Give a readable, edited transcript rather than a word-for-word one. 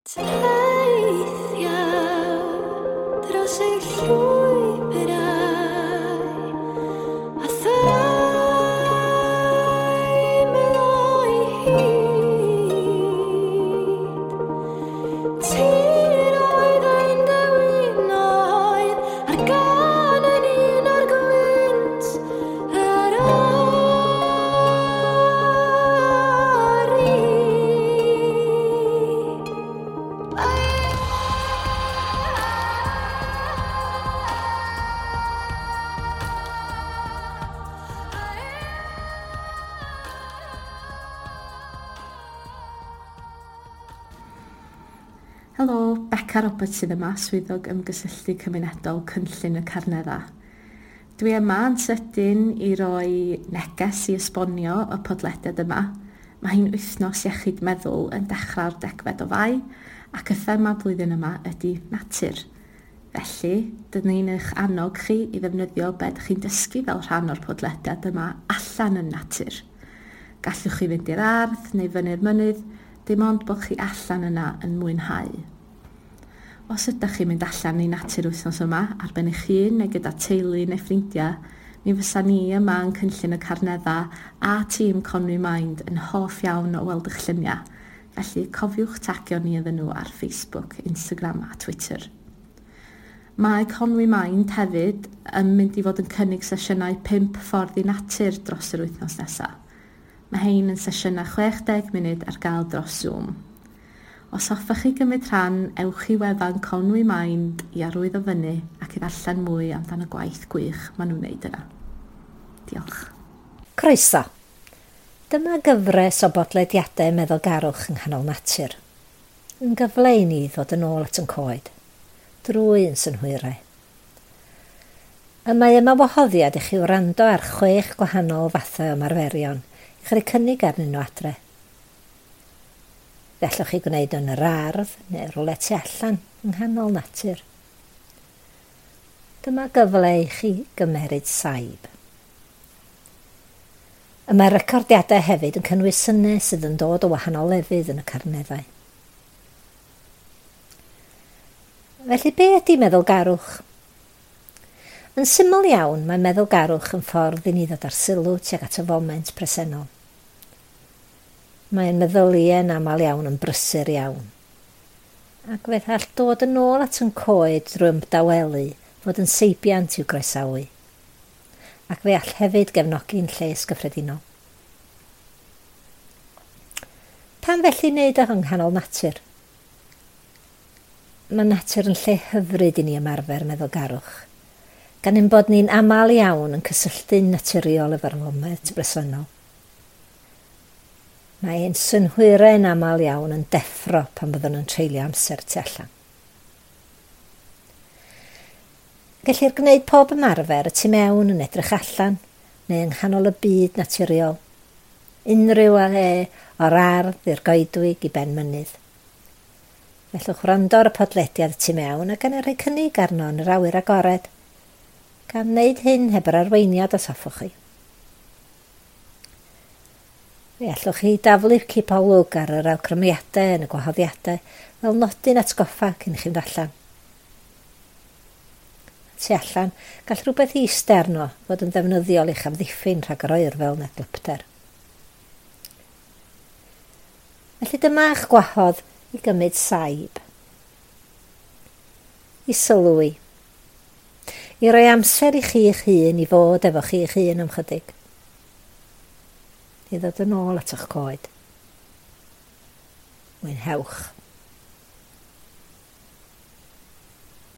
Teithiau dros y llwybrau a theimlo'i hyd. Tiroedd ein dewinoedd a'r gân yn un o'r gwynt yr ori. Helo, Beca Roberts sydd yma, swyddog ymgysylltu cymunedol Cynllun y Carnedda. Dwi yma yn sydyn i roi neges i esbonio y podlediad yma. Mae hi'n wythnos iechyd meddwl yn dechrau'r 10fed o Fai ac y thema blwyddyn yma ydy natur. Felly, dyn ni'n eich annog chi i ddefnyddio be ydych chi'n dysgu fel rhan o'r podlediad yma allan yn natur. Gallwch chi fynd i'r ardd neu fyny'r mynydd, dim ond bod chi allan yna yn mwynhau. Os ydych chi'n mynd allan i natur wythnos yma, ar ben eich hun neu gyda teulu neu ffrindiau, mi fysa ni yma yn Cynllun y Carnedda a tîm Conwy Mind yn hoff iawn o weld eich lluniau. Felly cofiwch tagio ni iddyn nhw ar Facebook, Instagram a Twitter. Mae Conwy Mind hefyd yn mynd i fod yn cynnig sesiynau 5 ffordd i natur dros yr wythnos nesaf. Mae hein yn sesiynau 60 munud ar gael dros Zoom. Os hoffech chi gymryd rhan, ewch i wefan Conwy Mind i arwyddo fyny ac i ddarllen mwy amdan y gwaith gwych maen nhw'n wneud yna. Diolch. Croeso. Dyma gyfres o bodlediadau meddylgarwch yng nghanol natur. Yn gyfle i ni ddod yn ôl at yn coed, drwy yn synhwyrau. Y mae yma wahoddiad i chi wrando ar 6 gwahanol fathau o ymarferion i chi roi cynnig arnyn nhw adre. Fe allwch chi gwneud yn yr ardd neu rywle tu allan yng nghanol natur. Dyma gyfle i chi gymeryd saib. Y mae'r recordiadau hefyd yn cynnwys synau sydd yn dod o wahanol lefydd yn y carneddau. Felly be ydy meddylgarwch? Yn syml iawn, mae meddylgarwch yn ffordd i ni ddod ar sylw tuag at y foment presennol. Mae'n meddyliau yn aml iawn yn brysur iawn. Ac fe all dod yn ôl at yn coed drwy ymdawelu fod yn seibiant i'w groesawu. Ac fe all hefyd gefnogi'n lles gyffredinol. Pam felly wneud o yng nghanol natur? Mae natur yn lle hyfryd i ni ymarfer meddylgarwch, gan ein bod ni'n aml iawn yn cysylltu'n naturiol efo'r foment bresennol. Mae ein synhwyrau yn aml iawn yn deffro pan byddwn yn treulio amser tu allan. Gellir gwneud pob ymarfer y tu mewn yn edrych allan neu yng nghanol y byd naturiol. Unrhyw le o'r ardd i'r goedwig i ben mynydd. Fellwch wrando ar y podlediad y tu mewn ac yna rhoi cynnig arno yn yr awyr agored, gan wneud hyn heb yr arweiniad os hoffwch chi. Fe allwch chi daflu cipolwg ar yr awgrymiadau yn y gwahoddiadau fel nodyn atgoffa cyn i chi fynd allan. Tu allan, gall rhywbeth iste arno fod yn ddefnyddiol i'ch amddiffyn rhag yr oerfel neu glypter. Felly dyma'ch gwahodd i gymryd saib, i sylwi, i roi amser i chi'ch hun i fod efo chi'ch hun am chydig, i ddod yn ôl at eich coed. Mwynhewch.